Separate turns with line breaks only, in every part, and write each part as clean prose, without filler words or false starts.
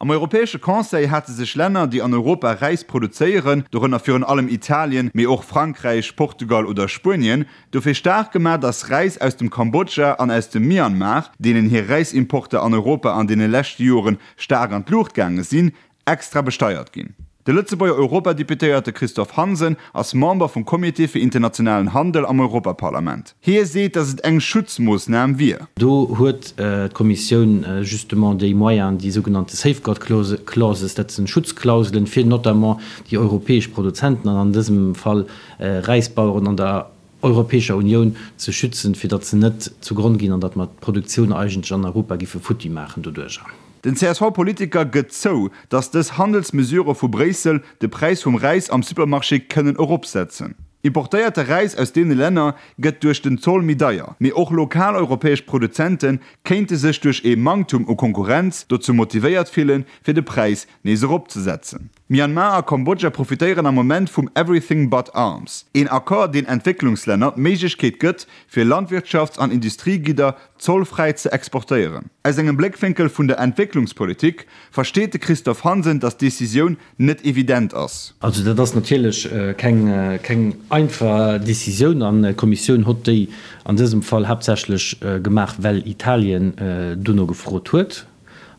Am Europäesche Conseil hate sech Länner, déi an Europa Räis produzéieren, dorënner virun allem Italien, mee och Frankräich, Portugal oder Spuenien, dofir staark gemaach, datt Räis aus dem Kambodscha an aus dem Myanmar, deenen hir Räisimporter an Europa an deene leschte Joren staark an d'Luucht gaange sinn, extra besteiert ginn. De Lëtzebuerger Europadeputéierte Christophe Hansen ass Member vum Comité fir internationalen Handel am Europaparlament. Hie seet, datt et eng Schutzmoossnam wier.
Do huet d'Kommissioun justement déi Moyenen, déi sougenannte Safeguard Clauses, dat sinn Schutzklauselen, fir notamment déi europäesch Produzenten an an dësem Fall Räisbaueren an der Europäescher Unioun ze schützen, fir datt se net zu Gronn ginn an datt mer d'Produktioun eigentlech an Europa giffe futti maachen doduerjer.
Den CSV-Politiker gëtt zou, datt dës Handelsmesurë vu Bréissel de Präis vum Räis am Supermarché kënnen eropsetzen. Importéierte Räis aus deene Länner gëtt duerch den Zoll méi deier, mee och lokal europäesch Produzente kéinte sech duerch ee Manktum u Konkurrenz dozou motivéiert fillen, fir de Präis nees eropzesetzen. Myanmar a Kambodscha profitéieren am Moment vum Everything but Arms, een Accord, deen Entwécklungslänner d'Méiglechkeet gëtt, fir Landwirtschafts an Industriegidder zollfräi ze exportéieren. Aus engem Bléckwénkel vun der Entwécklungspolitik versteet de Christophe Hansen, datt d'Decisioun net evident ass.
Also dat ass natierlech keng keng einfach Decisioun an d'Kommissioun hott déi an dësem Fall haaptsächlech gemaach, well Italien dono gefrot huet.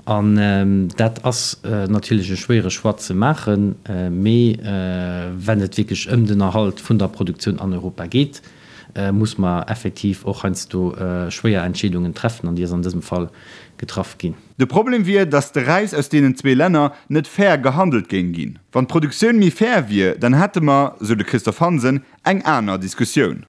An dat ass natierlech e schwéiere Choix ze maachen, mee wenn et wierklech ëm den Erhalt vun der Produktioun an Europa geet, muss mer effektiv och heiansdo schwéier Entscheedungen treffen, an déi ass an dësem Fall getraff ginn.
De Problem wier, datt de Räis aus deenen zwee Länner net fair gehandelt géing ginn. Wann d'Produktioun méi fair wier, dann hätte mer, sou de Christophe Hansen, eng aner Diskussioun.